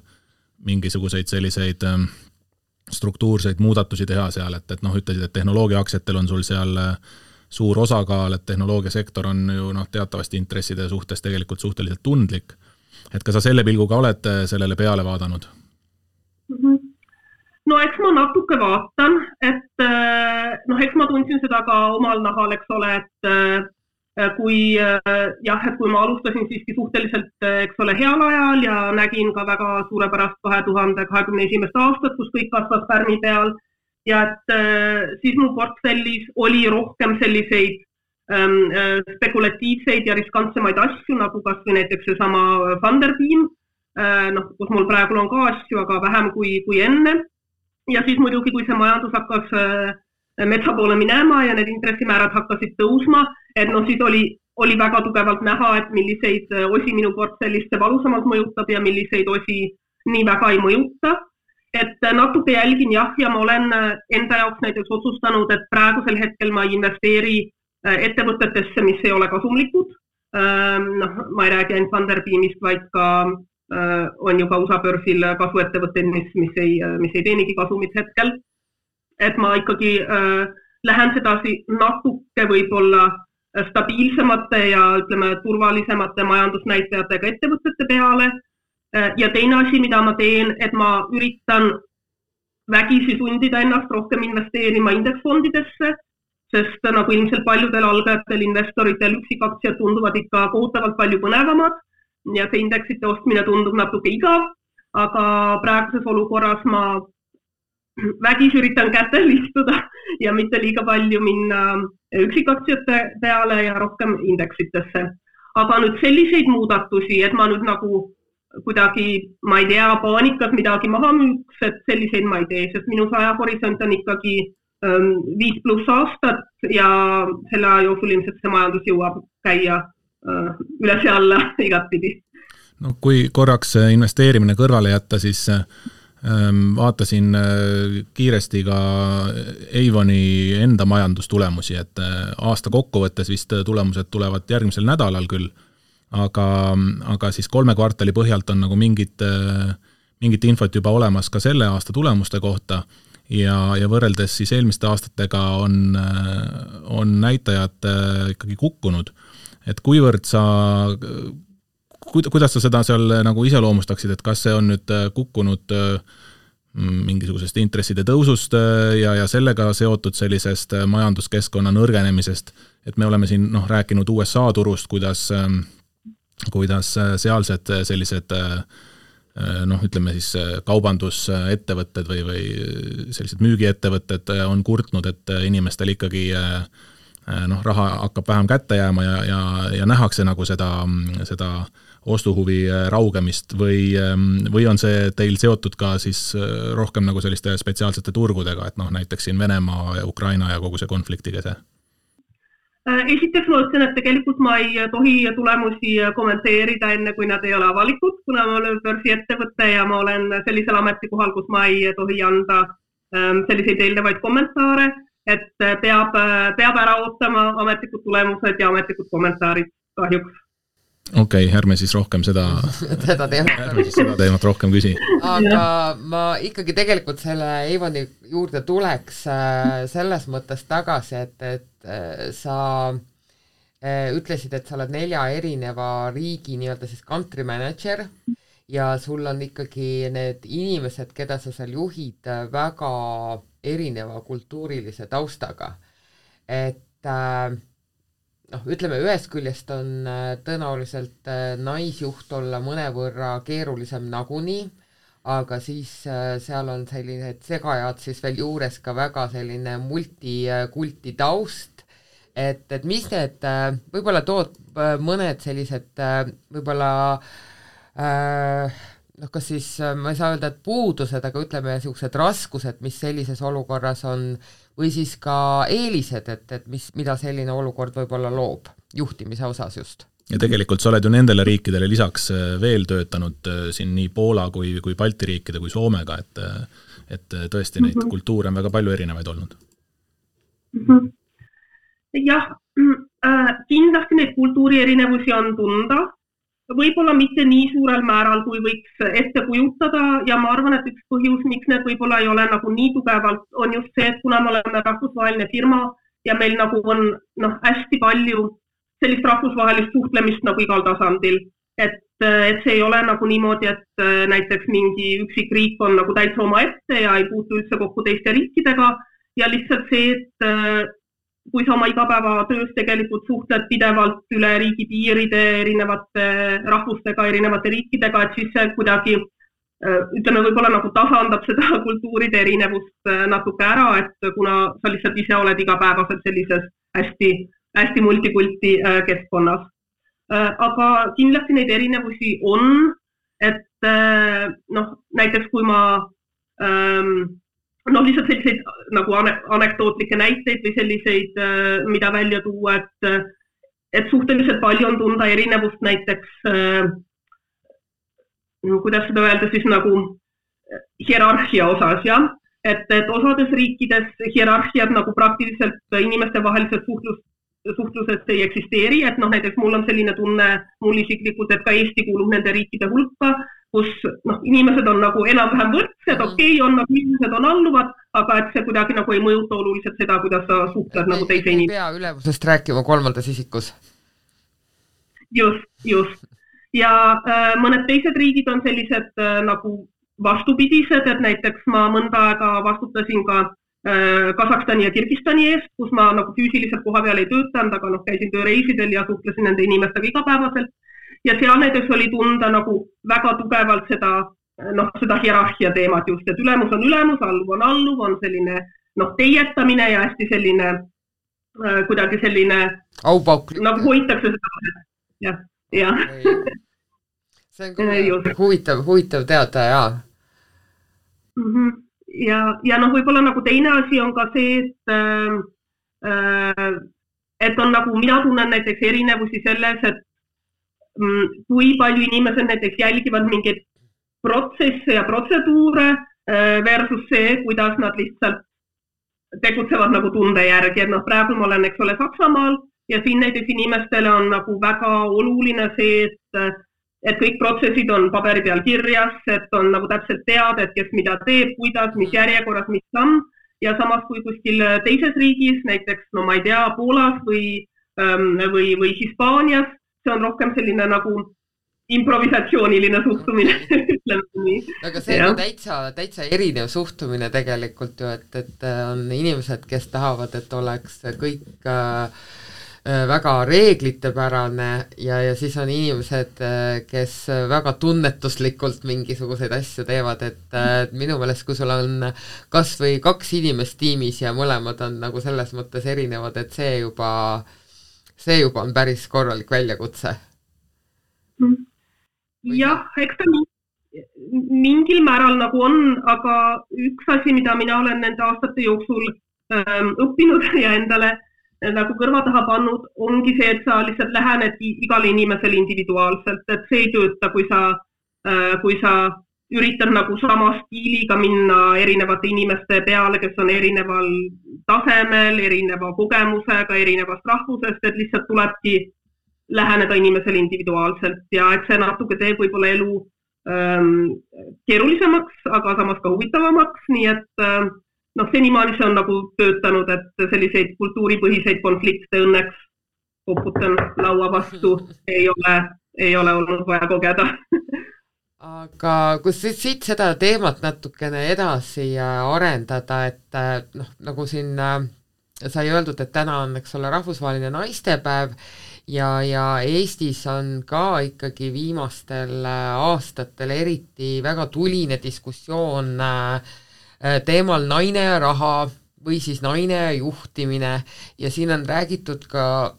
mingisuguseid selliseid struktuurseid muudatusi teha seal, et ütlesid, et tehnoloogiaaktsiatel on sul seal suur osakaal, et tehnoloogiasektor on ju teatavasti intresside suhtes tegelikult suhteliselt tundlik. Et ka sa selle pilguga oled sellele peale vaadanud? No eks ma natuke vaatan, et eks ma tundsin seda ka omal nahal, eks ole, et kui ma alustasin siiski suhteliselt, eks ole, heal ajal ja nägin ka väga suurepärast 2021. aastat, kus kõik kasvas pärmi peal ja et siis mu portfellis oli rohkem selliseid spekulatiivseid ja riskantsemaid asju, nagu kas või näiteks seesama Funderbeam, kus mul praegu on ka asju, aga vähem kui enne. Ja siis muidugi, kui see majandus hakkas metsa poole minema ja need intressimäärad hakkasid tõusma, et siis oli väga tugevalt näha, et milliseid osi minu portfellist see valusamalt mõjutab ja milliseid osi nii väga ei mõjuta. Et natuke jälgin ja ma olen enda jaoks näiteks otsustanud, et praegusel hetkel ma investeeri ettevõtetesse, mis ei ole kasumlikud. Ma ei räägi ainult Funderbeamist, vaid ka on ju ka USA börsil kasvuettevõtteid, mis ei teenigi kasumit hetkel. Et ma ikkagi lähen sedasi natuke võib-olla stabiilsemate ja ütleme turvalisemate majandusnäitajatega ettevõtete peale. Ja teine asi, mida ma teen, et ma üritan vägisi sundida ennast rohkem investeerima indeksfondidesse, sest nagu ilmselt paljudel algajatel investoritel üksikaktsiad tunduvad ikka kohutavalt palju põnevamad ja see indeksite ostmine tundub natuke igav, aga praeguses olukorras ma vägis üritan kätel istuda ja mitte liiga palju minna üksikaktsiate peale ja rohkem indeksitesse. Aga nüüd selliseid muudatusi, et ma nüüd nagu kuidagi, ma ei tea, paanikas midagi maha müüks, et selliseid ma ei tee, sest minu ajahorisont on ikkagi 5+ aastat ja selle aja jooksul ilmselt see majandus jõuab käia üles ja alla igatpidi. No kui korraks investeerimine kõrvale jätta, siis vaatasin kiiresti ka Avoni enda majandustulemusi, et aasta kokkuvõttes vist tulemused tulevad järgmisel nädalal küll, aga siis 3 kvartali põhjalt on nagu mingit infot juba olemas ka selle aasta tulemuste kohta ja võrreldes siis eelmiste aastatega on näitajad ikkagi kukkunud. Et kuivõrd kuidas sa seda seal nagu iseloomustaksid, et kas see on nüüd kukkunud mingisugusest intresside tõusust ja sellega seotud sellisest majanduskeskkonna nõrgenemisest, et me oleme siin rääkinud USA turust, kuidas sealsed sellised ütleme siis kaubandusettevõtted või sellised müügiettevõtted on kurtnud, et inimestel ikkagi raha hakkab vähem kätte jääma ja nähakse nagu seda ostuhuvi raugemist või on see teil seotud ka siis rohkem nagu selliste spetsiaalsete turgudega, et näiteks siin Venemaa ja Ukraina ja kogu see konfliktiga see? Esiteks ma ütlen, et tegelikult ma ei tohi tulemusi kommenteerida enne, kui nad ei ole avalikud, kuna ma olen börsiettevõte ja ma olen sellisel ametikohal, kus ma ei tohi anda selliseid eelnevaid kommentaare, et peab ära ootama ametlikud tulemused ja ametlikud kommentaarid kahjuks. Okei, ärme siis rohkem seda teemat rohkem küsi. Aga ma ikkagi tegelikult selle Avoni juurde tuleks selles mõttes tagasi, et sa ütlesid, et sa oled 4 erineva riigi nii-öelda siis country manager ja sul on ikkagi need inimesed, keda sa seal juhid, väga erineva kultuurilise taustaga. Et ütleme, ühest küljest on tõenäoliselt naisjuht olla mõnevõrra keerulisem nagunii, aga siis seal on sellised segajad siis veel juures ka väga selline multikulti taust, et mis need, võib-olla tood mõned sellised võib-olla kas siis, ma ei saa öelda, et puudused, aga ütleme sellised raskused, mis sellises olukorras on, või siis ka eelised, et mida selline olukord võib-olla loob juhtimise osas just. Ja tegelikult sa oled ju nendele riikidele lisaks veel töötanud siin nii Poola kui Balti riikide kui Soomega, et tõesti neid kultuure on väga palju erinevaid olnud. Jah, kindlasti neid kultuuri erinevusi on tunda, võib-olla mitte nii suurel määral, kui võiks ette kujutada ja ma arvan, et üks põhjus, miks need võib-olla ei ole nagu nii tugevalt, on just see, et kuna me oleme rahvusvaheline firma ja meil nagu on hästi palju sellist rahvusvahelist suhtlemist nagu igal tasandil, et see ei ole nagu niimoodi, et näiteks mingi üksik riik on nagu täitsa oma ette ja ei puutu üldse kokku teiste riikidega ja lihtsalt see, et kui sa oma igapäevatöös tegelikult suhtled pidevalt üle riigipiiride erinevate rahvustega, erinevate riikidega, et siis see kuidagi, ütleme, võib-olla nagu tasandab seda kultuuride erinevust natuke ära, et kuna sa lihtsalt ise oled igapäevaselt sellises hästi multikulti keskkonnas. Aga kindlasti neid erinevusi on, et näiteks kui ma lihtsalt selliseid nagu anekdootlikke näiteid või selliseid, mida välja tuua, et suhteliselt palju on tunda erinevust näiteks, kuidas seda öelda siis nagu hierarhia osas, jah? Et osades riikides hierarhiad nagu praktiliselt inimeste vahelises suhtluses ei eksisteeri, et näiteks mul on selline tunne mul isiklikult, et ka Eesti kuulub nende riikide hulka, kus inimesed on nagu enam-vähem võrdsed, on nagu inimesed on alluvad, aga et see kuidagi nagu ei mõjuta oluliselt seda, kuidas sa suhtled nagu teise inimesed. Ei pea ülevusest rääkima 3. isikus. Just. Ja mõned teised riigid on sellised nagu vastupidised, et näiteks ma mõnda aega vastutasin ka Kasahstani ja Kirgistani eest, kus ma nagu füüsiliselt koha peal ei töötanud, aga käisin tööreisidel ja suhtlesin nende inimestega igapäevaselt. Ja seal näiteks oli tunda nagu väga tugevalt seda seda hierarhia teemat just, et ülemus on ülemus, alluv on selline teietamine ja hästi selline kuidagi selline aupauk. Nagu hoitakse seda. Ja. See on huvitav teada, jaa. Ja võib-olla nagu teine asi on ka see, et on nagu, mina tunnen näiteks erinevusi selles, et kui palju inimesed näiteks jälgivad mingeid protsesse ja protseduure versus see, kuidas nad lihtsalt tegutsevad nagu tunde järgi, et praegu ma olen, eks ole, Saksamaal ja siin näiteks inimestele on nagu väga oluline see, et kõik protsessid on paberi peal kirjas, et on nagu täpselt teada, et kes mida teeb, kuidas, mis järjekorras, mis samm ja samas kui kuskil teises riigis, näiteks, ma ei tea, Poolas või Hispaanias, see on rohkem selline nagu improvisatsiooniline suhtumine. Aga see on täitsa erinev suhtumine tegelikult ju, et on inimesed, kes tahavad, et oleks kõik väga reeglitepärane ja siis on inimesed, kes väga tunnetuslikult mingisuguseid asju teevad, et minu meelest, kui sul on kas või 2 inimest tiimis ja mõlemad on nagu selles mõttes erinevad, et see juba on päris korralik väljakutse. Jah, eks ta mingil määral nagu on, aga üks asi, mida mina olen nende aastate jooksul õppinud ja endale nagu kõrva taha pannud, ongi see, et sa lihtsalt lähened igale inimesele individuaalselt, et see ei tööta, kui sa üritad nagu sama stiiliga minna erinevate inimeste peale, kes on erineval tasemel, erineva kogemusega, erinevast rahvusest, et lihtsalt tulebki läheneda inimesele individuaalselt ja et see natuke teeb võib-olla elu keerulisemaks, aga samas ka huvitavamaks, nii et senimaani see on nagu töötanud, et selliseid kultuuripõhiseid konflikte õnneks koputan laua vastu, ei ole olnud vaja kogeda. Aga kui siit seda teemat natukene edasi arendada, et nagu siin sai öeldud, et täna on, eks ole, rahvusvaheline naistepäev ja Eestis on ka ikkagi viimastel aastatel eriti väga tuline diskussioon teemal naine ja raha või siis naine ja juhtimine ja siin on räägitud ka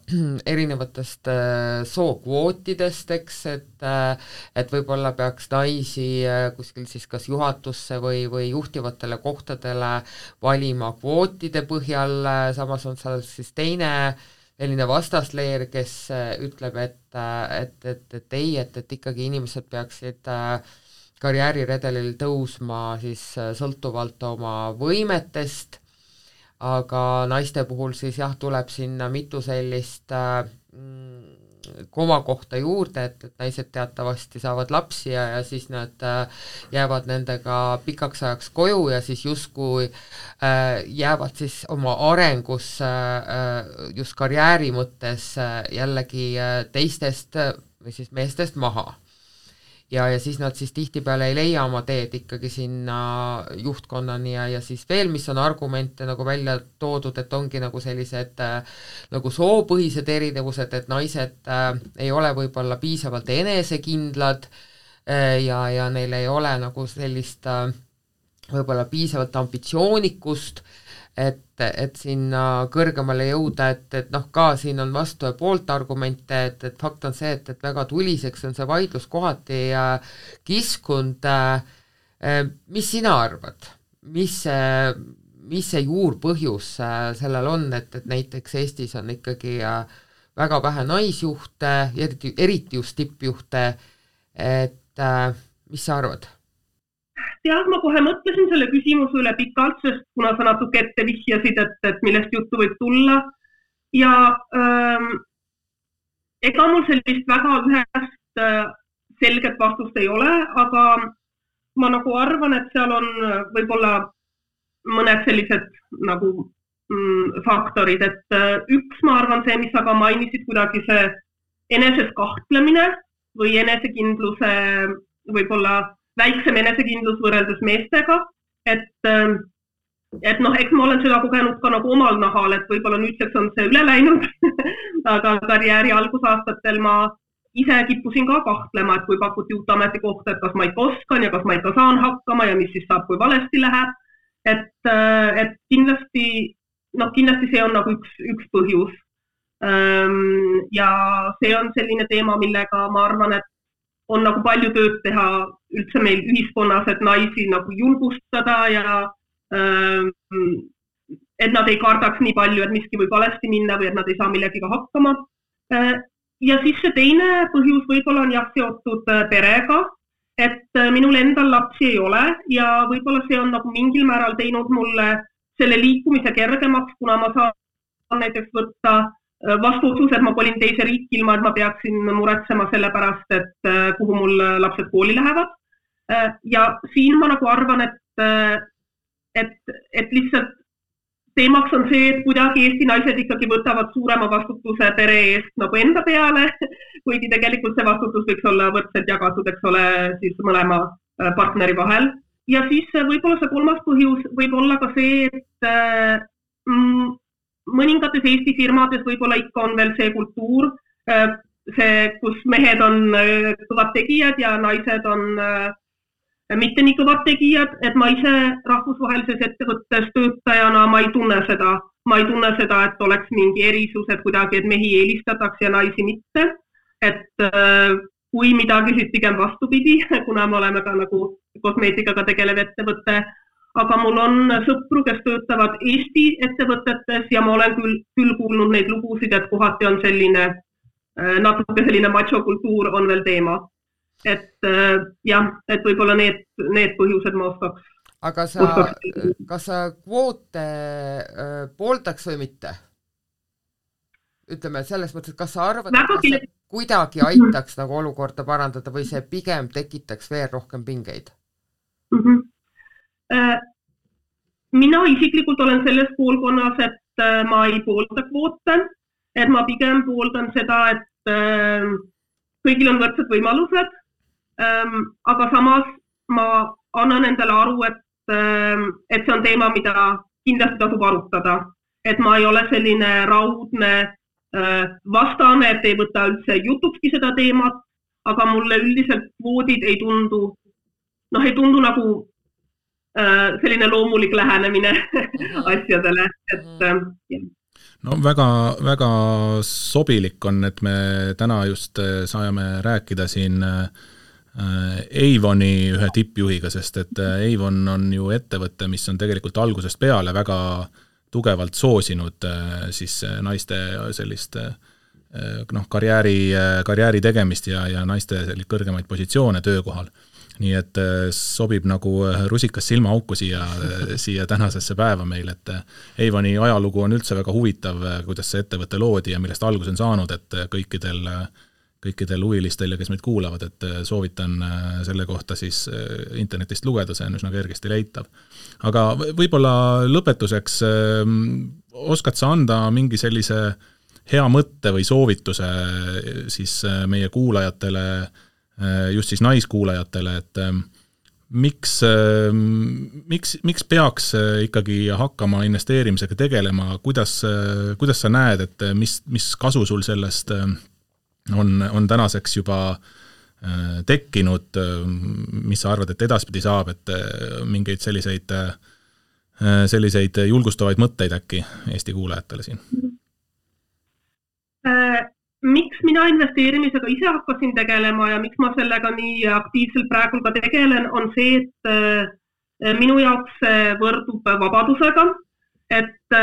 erinevatest sookvootidest, eks, et võib-olla peaks naisi kuskil siis kas juhatusse või juhtivatele kohtadele valima kvootide põhjal, samas on seal siis teine selline vastasleer, kes ütleb, et ikkagi inimesed peaksid karjääriredelil tõusma siis sõltuvalt oma võimetest, aga naiste puhul siis jah, tuleb sinna mitu sellist komakohta juurde, et naised teatavasti saavad lapsi ja siis nad jäävad nendega pikaks ajaks koju ja siis justkui jäävad siis oma arengus just karjääri mõttes jällegi teistest või siis meestest maha. Ja siis nad siis tihtipeale ei leia oma teed ikkagi sinna juhtkonnani ja siis veel, mis on argumente nagu välja toodud, et ongi nagu sellised nagu soopõhised erinevused, et naised ei ole võib-olla piisavalt enesekindlad ja neil ei ole nagu sellist võib-olla piisavalt ambitsioonikust, et sinna kõrgemale jõuda, et ka siin on vastu ja poolt argumente, et fakt on see, et väga tuliseks on see vaidlus kohati kiskunud. Mis sina arvad? Mis see juurpõhjus sellel on, et näiteks Eestis on ikkagi väga vähe naisjuhte, eriti just tippjuhte, et mis sa arvad? Jah, ma kohe mõtlesin selle küsimuse üle pikalt, sest kuna sa natuke ette vihjasid, et millest juttu võib tulla ja ega mul sellist väga ühest selget vastust ei ole, aga ma nagu arvan, et seal on võib-olla mõned sellised nagu faktorid, et üks ma arvan see, mis sa ka mainisid, kuidagi see eneses kahtlemine või enesekindluse võib-olla väiksem enesekindlus võrreldes meestega, et eks ma olen seda kogenud ka nagu omal nahal, et võib-olla nüüdseks on see üle läinud, aga karjääri algusaastatel ma ise kippusin ka kahtlema, et kui pakuti uut ametikohta, et kas ma ikka oskan ja kas ma ikka saan hakkama ja mis siis saab, kui valesti läheb. Et kindlasti see on nagu üks põhjus. Ja see on selline teema, millega ma arvan, et on nagu palju tööd teha üldse meil ühiskonnas, et naisi nagu julgustada ja et nad ei kardaks nii palju, et miski võib valesti minna või et nad ei saa millegiga hakkama. Ja siis see teine põhjus võib-olla on jah seotud perega, et minul endal lapsi ei ole ja võib-olla see on nagu mingil määral teinud mulle selle liikumise kergemaks, kuna ma saan näiteks võtta vastu otsus, et ma kolin teise riiki ilma, et ma peaksin muretsema selle pärast, et kuhu mul lapsed kooli lähevad. Ja siin ma nagu arvan, et lihtsalt teemaks on see, et kuidagi Eesti naised ikkagi võtavad suurema vastutuse pere eest nagu enda peale, kuigi tegelikult see vastutus võiks olla võrdselt jagatud, eks ole, siis mõlema partneri vahel. Ja siis võib-olla see kolmas põhjus võib olla ka see, et mõningates Eesti firmades võib-olla ikka on veel see kultuur, kus mehed on kõvad tegijad ja naised on mitte nii kõvad tegijad, et ma ise rahvusvahelises ettevõttes töötajana ma ei tunne seda, et oleks mingi erisus, et kuidagi, et mehi eelistatakse ja naisi mitte. Et kui midagi siis pigem vastupidi, kuna me oleme ka nagu kosmeetikaga tegelev ettevõte, aga mul on sõpru, kes töötavad Eesti ettevõtetes ja ma olen küll kuulnud neid lugusid, et kohati on selline, natuke selline macho-kultuur on veel teema. Et jah, et võib-olla need põhjused ma oskaks. Aga kas sa kvoote pooldaks või mitte? Ütleme selles mõttes, et kas sa arvad, et kas see kuidagi aitaks nagu olukorda parandada või see pigem tekitaks veel rohkem pingeid? Mina isiklikult olen selles poolkonnas, et ma ei poolda kvoote, et ma pigem pooldan seda, et kõigil on võrdsed võimalused. Aga samas ma annan endale aru, et see on teema, mida kindlasti tasub arutada. Et ma ei ole selline raudne vastane, et ei võta üldse jutukski seda teemat, aga mulle üldiselt kvoodid ei tundu nagu selline loomulik lähenemine asjadele. No väga sobilik on, et me täna just saame rääkida siin Avoni ühe tippjuhiga, sest et Avon on ju ettevõte, mis on tegelikult algusest peale väga tugevalt soosinud siis naiste sellist karjääri tegemist ja naiste kõrgemaid positsioone töökohal. Nii et sobib nagu rusikas silmaauku siia tänasesse päeva meil, et Avoni ajalugu on üldse väga huvitav, kuidas see ettevõte loodi ja millest algus on saanud, et kõikidel huvilistel ja kes meid kuulavad, et soovitan selle kohta siis internetist lugeda, see on üsna kergesti leitav. Aga võib-olla lõpetuseks oskad sa anda mingi sellise hea mõtte või soovituse siis meie kuulajatele, just siis naiskuulajatele, et miks peaks ikkagi hakkama investeerimisega tegelema, kuidas sa näed, et mis kasu sul sellest on tänaseks juba tekkinud, mis sa arvad, et edaspidi saab, et mingeid selliseid julgustavaid mõtteid äkki Eesti kuulajatele siin? Miks mina investeerimisega ise hakkasin tegelema ja miks ma sellega nii aktiivselt praegu ka tegelen, on see, et minu jaoks võrdub vabadusega, et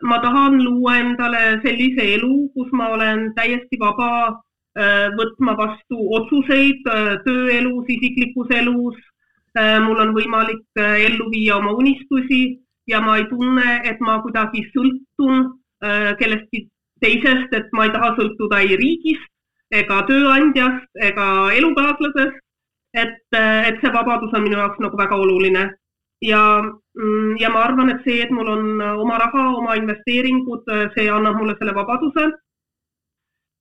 ma tahan luua endale sellise elu, kus ma olen täiesti vaba võtma vastu otsuseid tööelus, isiklikus elus. Mul on võimalik ellu viia oma unistusi ja ma ei tunne, et ma kuidagi sõltun kellestki teisest, et ma ei taha sõltuda ei riigist, ega tööandjast, ega elukaaslasest, et see vabadus on minu jaoks nagu väga oluline. Ja ma arvan, et see, et mul on oma raha, oma investeeringud, see annab mulle selle vabaduse.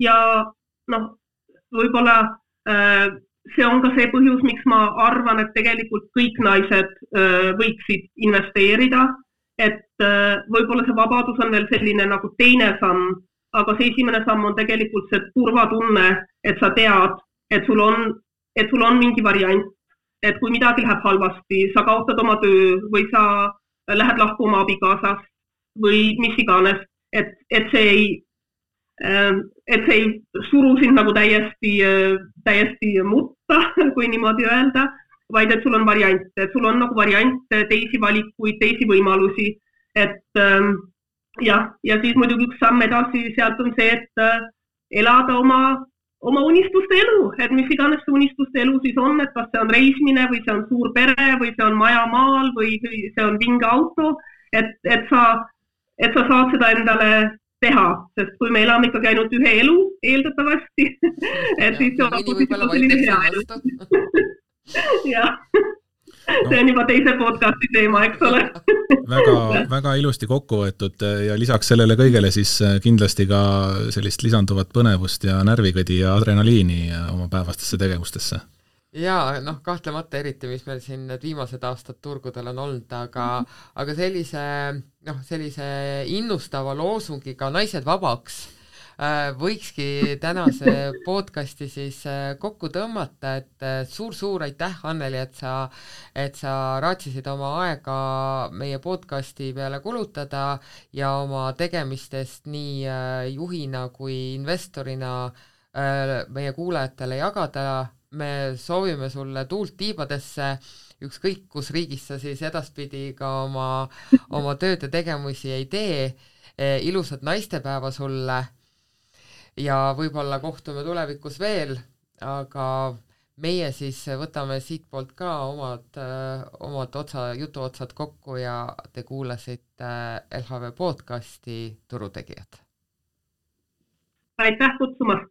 Ja võib-olla see on ka see põhjus, miks ma arvan, et tegelikult kõik naised võiksid investeerida, et võib-olla see vabadus on veel selline nagu teine samm, aga see esimene samm on tegelikult see turvatunne, et sa tead, et sul on mingi variant, et kui midagi läheb halvasti, sa kaotad oma töö või sa lähed lahku oma abikaasast või mis iganes, et see ei suru sind nagu täiesti mutta, kui niimoodi öelda, vaid et sul on variante, et sul on nagu variante, teisi valikuid, teisi võimalusi, et ja siis muidugi üks samm edasi sealt on see, et elada oma unistuste elu, et mis iganes see unistuste elu siis on, et kas see on reisimine või see on suur pere või see on maja maal või see on vinge auto, et sa saad seda endale teha, sest kui me elame ikkagi ainult ühe elu eeldatavasti, et siis see on selline hea elu. Jah. See on juba teise podcasti teema, eks ole. väga ilusti kokku võetud ja lisaks sellele kõigele siis kindlasti ka sellist lisanduvat põnevust ja närvikõdi ja adrenaliini oma päevastesse tegevustesse. Jaa, kahtlemata eriti, mis meil siin need viimased aastad turgudel on olnud, aga sellise innustava loosungiga naised vabaks võikski tänase podcasti siis kokku tõmmata, et suur aitäh, Anneli, et sa raatsisid oma aega meie podcasti peale kulutada ja oma tegemistest nii juhina kui investorina meie kuulajatele jagada. Me soovime sulle tuult tiibadesse, ükskõik kus riigis sa siis edaspidi ka oma tööd ja tegemusi ei tee. Ilusat naistepäeva sulle ja võib-olla kohtume tulevikus veel, aga meie siis võtame siitpoolt ka omad jutuotsad kokku ja te kuulasite LHV podcasti Turutegijad. Aitäh kutsumast!